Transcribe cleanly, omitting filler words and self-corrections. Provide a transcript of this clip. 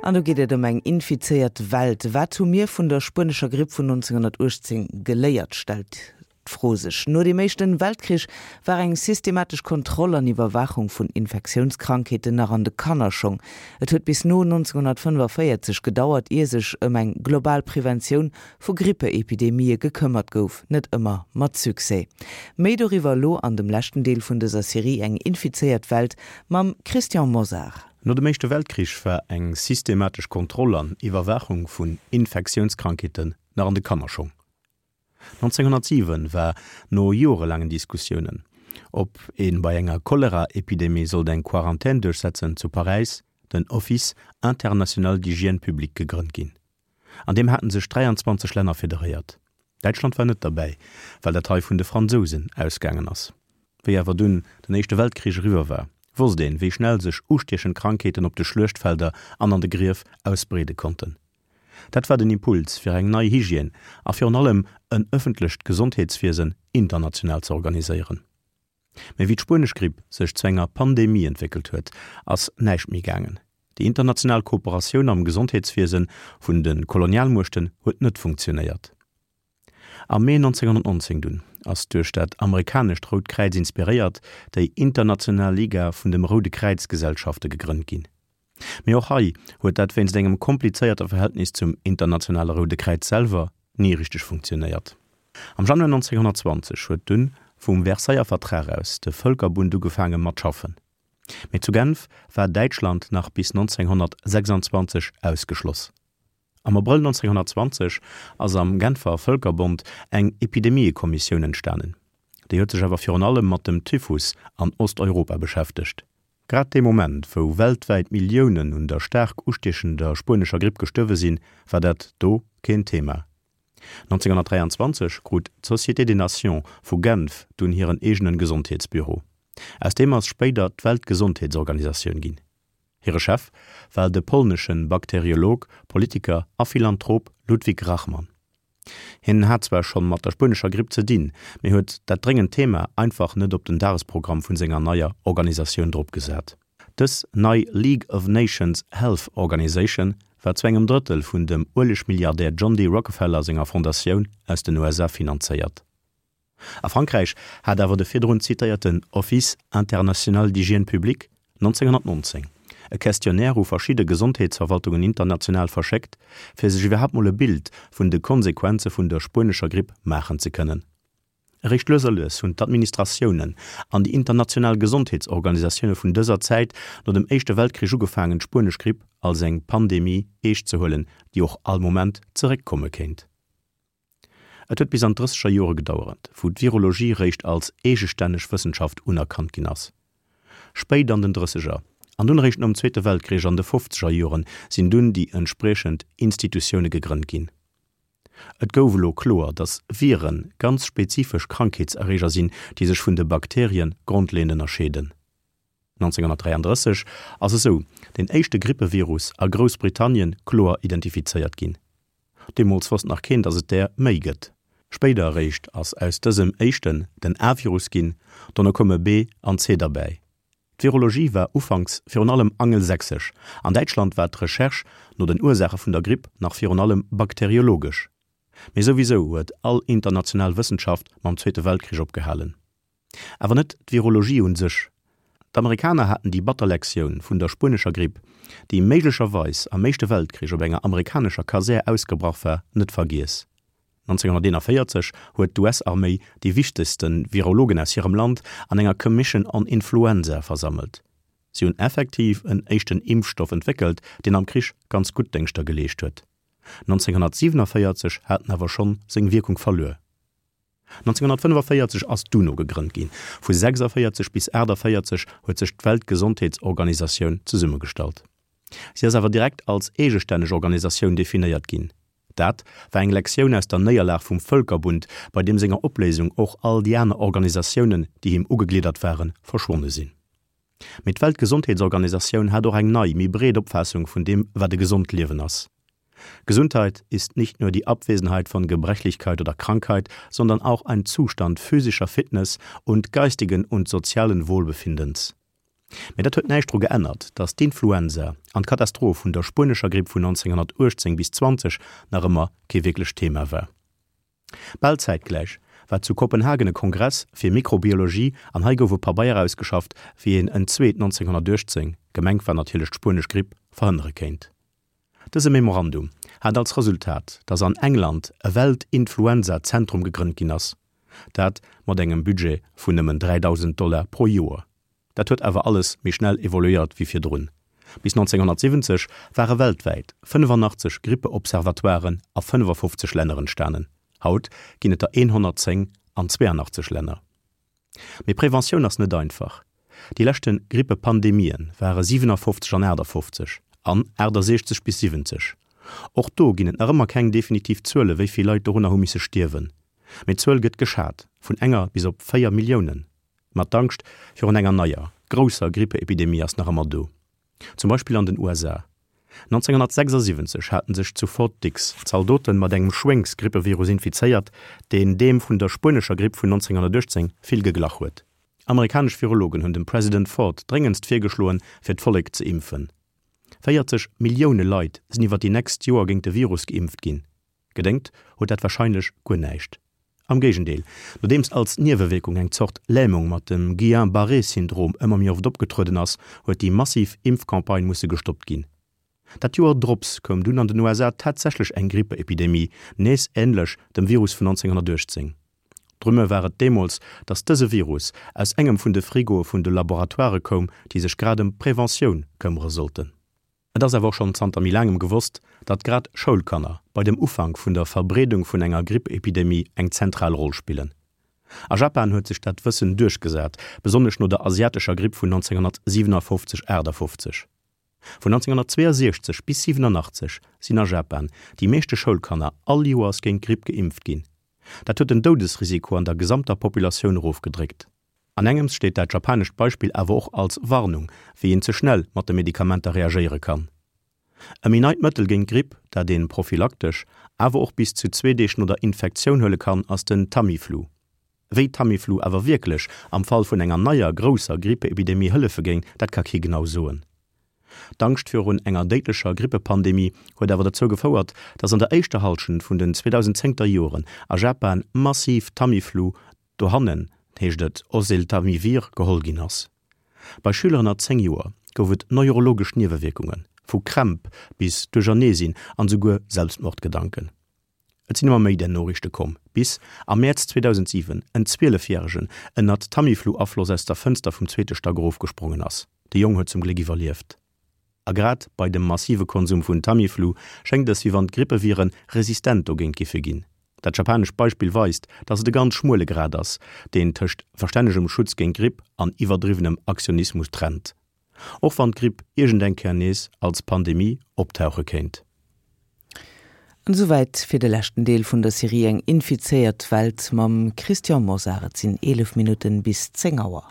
An do geet et ëm eng infizéiert Welt. Wat hu mir vun der spuenescher Gripp vun 1918 geléiert, stellt d'Fro sech. No dem Éischten Weltkrich war eng systematesch Kontroll an Iwwerwaachung vun Infektiounskrankheeten nach an de Kannerschong. Et huet bis no 1945 gedauert, ier sech ëm eng global Preventioun vu Grippeepidemië gekëmmert gouf, net ëmmer mat Succès. Méi doriwwer elo an dem leschten Deel vun dëser Serie Eng infizéiert Welt mam Christian Mosar. No dem Éischte Weltkrich war eng systematesch Kontroll an Iwwerwaachung vun Infektiounskrankheeten nach an de Kannerschong. 1907 war no jorelaangen Diskussiounen, ob ee bei enger Choleraepidemie sollt eng Quarantän duerchsetzen, zu Paräis den Office international d'hygiène publique gegrënnt ginn. An deem haten sech 23 Länner federéiert. Däitschland war net derbäi, well dat hei vun de Fransousen ausgaangen ass. Wéi awer dunn den Éischte Weltkrich eriwwer war, wosst een, wéi schnell sech ustiechend Krankheeten op de Schluechtfelder an an de Grief ausbreede konnten. Dat war den Impuls fir eng nei Hygiène a virun allem en ëffentlecht Gesondheetswiesen international ze organiséieren. Mee wéi d'spuenesch Gripp sech zu enger Pandemie entwéckelt huet, ass näischt méi gaangen. Déi international Kooperatioun am Gesondheetswiese vun de Kolonialmuechten huet net funktionéiert. Am Mee 1919 dunn ass, duerch dat amerikanescht Rout Kräiz inspiréiert, déi International Liga vun dem Roude Kräiz-Gesellschafte gegrënnt ginn. Mee och hei huet dat wéinst engem komplizéierte Verhältnis zum Internationale Roude Kräiz selwer ni richteg funktionéiert. Am Januar 1920 huet dunn vum Versailler Vertrag aus de Vëlkerbund ugefaange mat schaffen. Mee zu Genf war Däitschland nach bis 1926 ausgeschloss. Am Abrëll 1920 ass am Genfer Vëlkerbond eng Epidemiekommissioun entstanen. Déi huet sech awer virun allem mat dem Typhus an Osteuropa beschäftegt. Grad dee Moment, wou weltwäit Milliounen un der staark ustiechender spuenescher Gripp gestuerwe sinn, war dat do keen Thema. 1923 krut d'Société des Nations vu Genf dunn hiren eegenen Gesondheetsbüro. Aus deem ass spéider d'Weltgesondheetsorganisatioun ginn. Hire Chef war de polnesche Bakteriolog, Politiker a Philanthrop Ludwik Rachman. Hien hat zwar schonn mat der spuenescher Gripp ze dinn, mee huet dat dréngend Thema einfach net op den Dagesprogramm vun senger neier Organisatioun drop gesat. Dës nei League of Nations Health Organization war zu engem Drëttel vun dem Uelegmilliardär John D. Rockefeller senger Fondatioun aus den USA finanzéiert. A Frankräich hat awer de virdrun zitéierten Office international d'hygiène publique 1919 e Questionnaire u verschidde Gesondheetsverwaltungen international verschéckt, fir sech iwwerhaapt mol e Bild vun de Konsequenze vun der spuenescher Gripp maachen ze kënnen. Eréischt lues a lues hunn d'Administratiounen an déi international Gesondheetsorganisatioune vun dëser Zäit no dem Éischte Weltkrich ugefaangen, d'spuenesch Gripp als eng Pandemie eescht ze huelen, déi och all Moment zeréckkomme kéint. Et huet bis an d'Drësseger Jore gedauerent, wou d'Virologie réischt als eegestänneg Wëssenschaft unerkannt ginn ass. Spéit an den Drësseger an dunn eréischt nom Zweete Weltkrich an de Fofzeger Joren sinn dunn déi entspriechend Institutioune gegrënnt ginn. Et gouf elo kloer, datt Vire ganz spezifesch Krankheetserreeger sinn, déi sech vun de Bakterie grondleeënd ënnerscheeden. 1933 ass esou den éischte Grippevirus a Groussbritannien kloer identifizéiert ginn. Deemools wosst nach keen, datt et där méi gëtt. Spéider eréischt ass aus dësem éischten den A-Virus ginn, dono koume B an C derbäi. D'Virologie war ufanks virun allem angelsächsesch, an Däitschland war d'Recherche no den Ursaache vun der Gripp nach virun allem bakteriologesch. Mee souwisou huet all international Wëssenschaft mam Zweete Weltkrich opgehalen. Awer net d'Virologie un sech. D'Amerikaner haten déi batter Lektioun vun der spuenescher Gripp, déi méiglecherweis am Éischte Weltkrich op enger amerikanescher Kasär ausgebrach war, net vergiess. 1941 huet d'US-Arméi déi wichtegste Virologen aus hirem Land an enger Commission on Influenza versammelt. Si hunn effektiv en éischten Impfstoff entwéckelt, deen am Krich ganz gutt Déngschter geleescht huet. 1947 hat en awer schonn seng Wierkung verluer. 1945 ass d'UNO gegrënnt ginn. Vu 46 bis 48 huet sech d'Weltgesondheetsorganisatioun zesummegestallt. Si ass awer direkt als eegestänneg Organisatioun definéiert ginn. Dat war eng Lektioun aus der Néierlag vum Vëlkerbund, bei deem senger Opléisung och all déi aner Organisatiounen, déi him ugegliddert waren, verschwonne sinn. Mee d'Weltgesondheetsorganisatioun hat och eng nei, méi breet Opfaassung vun deem, wat e gesond Liewen ass. Gesundheit ist nicht nur die Abwesenheit von Gebrechlichkeit oder Krankheit, sondern auch ein Zustand physischer Fitness und geistigen und sozialen Wohlbefindens. Mä dat huet näischt dru geännert, datt d'Influenza an d'Katastroph vun der spuenescher Gripp vun 1918 bis 20 nach ëmmer kee wierklecht Thema war. Bal zäitgläich war zu Kopenhagen e Kongress fir Mikrobiologie an hei gouf e Pabeier ausgeschafft, wéi een en zweet 1918, gemengt war natierlech d'spuenesch Gripp, verhënnere kéint. Dëse Memorandum hat als Resultat, datt an England e Welt-Influenza-Zentrum gegrënnt ginn ass, dat mat engem Budget vun nëmmen 3.000 Dollar pro Joer. Dat huet awer alles méi schnell evoluéiert wéi virdrun. Bis 1970 ware weltwäit 85 Grippe-Observatoiren a 55 Länner entstanen. Haut ginn et der 110 an 82 Länner. Mee Preventioun ass net einfach. Déi leschte Grippe-Pandemien ware 57 an 58 an 68 bis 70. Och do ginn et nach ëmmer keng definitiv Zuele wéi vill Leit dorunner hu misse stierwen. Mee d'Zuel gëtt geschat vun enger bis op 4 Milliounen. Ma d'Angscht virun enger neier, grousser Grippeepidemie ass nach ëmmer do. Zum Beispill an den USA. 1976 haten sech zu Fort Dix Zaldoten mat engem Schwéngsgrippevirus infizéiert, deen deem vun der spuenescher Gripp vun 1918 vill geglach huet. Amerikanesch Virologen hunn dem President Ford dréngendst virgeschloen, fir d'Vollek ze impfen. 40 Millioune Leit sinn iwwer déi nächst Joer géint de Virus geimpft ginn. Gedéngt huet dat warscheinlech guer näischt. Am Géigendeel, nodeems als Niewewierkung eng Zort Lämung mat dem Guillain-Barré-Syndrom ëmmer méi oft opgetrueden ass, huet déi massiv Impfcampagne musse gestoppt ginn. Dat Joer drops koum dunn an den USA tatsächlech eng Grippeepidemie, nees änlech dem Virus vun 1918. D'Rumeur war et deemools, datt dëse Virus aus engem vun de Frigoe vun de Laboratoirë koum, déi sech grad ëm d'Preventioun këmmere sollten. Et ass awer och schonn zanter méi laangem gewosst, datt grad Schoulkanner bei dem Ufank vun der Verbreedung vun enger Grippepidemie eng zentral Roll spillen. A Japan huet sech dat Wëssen duerchgesat, besonnesch no der asiatescher Gripp vun 1957, 58. Vun 1962 bis 87 sinn a Japan déi meeschte Schoulkanner all Joers géint d'Gripp geimpft ginn. Dat huet den Doudesrisiko an der gesamter Populatioun erofgedréckt. An engems steet dat japanescht Beispill awer och als Warnung, wéi een ze schnell mat de Medikamenter reagéiere kann. E méi neit Mëttel géint d'Gripp, dat een prophylaktesch, awer och bis zu zwee Deeg no der Infektioun huele kann, ass den Tamiflu. Wéi Tamiflu awer wierklech am Fall vun enger neier grousser Grippeepidemie hëllefe géing, dat ka kee genau soen. D'Angscht virun enger déidlecher Grippepandemie huet awer dozou gefouert, datt an der éischter Hallschent vun den 2010er Joren a Japan massiv Tamiflu Dohannen heescht et Oseltamivir geholl ginn ass. Bei Schüler ënner 10 Joer gouf et neurologesch Niewewierkunge vu Krämp bis Duercherneesinn an esouguer Selbstmordgedanken. Et sinn ëmmer méi där Noriichte komm, bis am Mäerz 2007 en 12 Järegen ënnert Tamiflu-Afloss aus der Fënster vum zweete Stack erofgesprongen ass. De Jong huet zum Gléck iwwerlieft. A grad bei dem massive Konsum vun Tamiflu schéngt es, wéi wann d'Grippeviren resistent dogéint giffe ginn. Dat japanescht Beispill weist, dass et e ganz schmuele Grad ass, deen tëscht verstännegem Schutz géint Gripp an iwwerdriwwenem Aktionismus trennt. Och wann d'Gripp iergend eng Kéier nees als Pandemie optauche kéint. An esouwäit fir de leschten Deel vun der Serie Eng infizéiert Welt mam Christian Mosar. Et sinn 11 Minutten bis 10 Auer.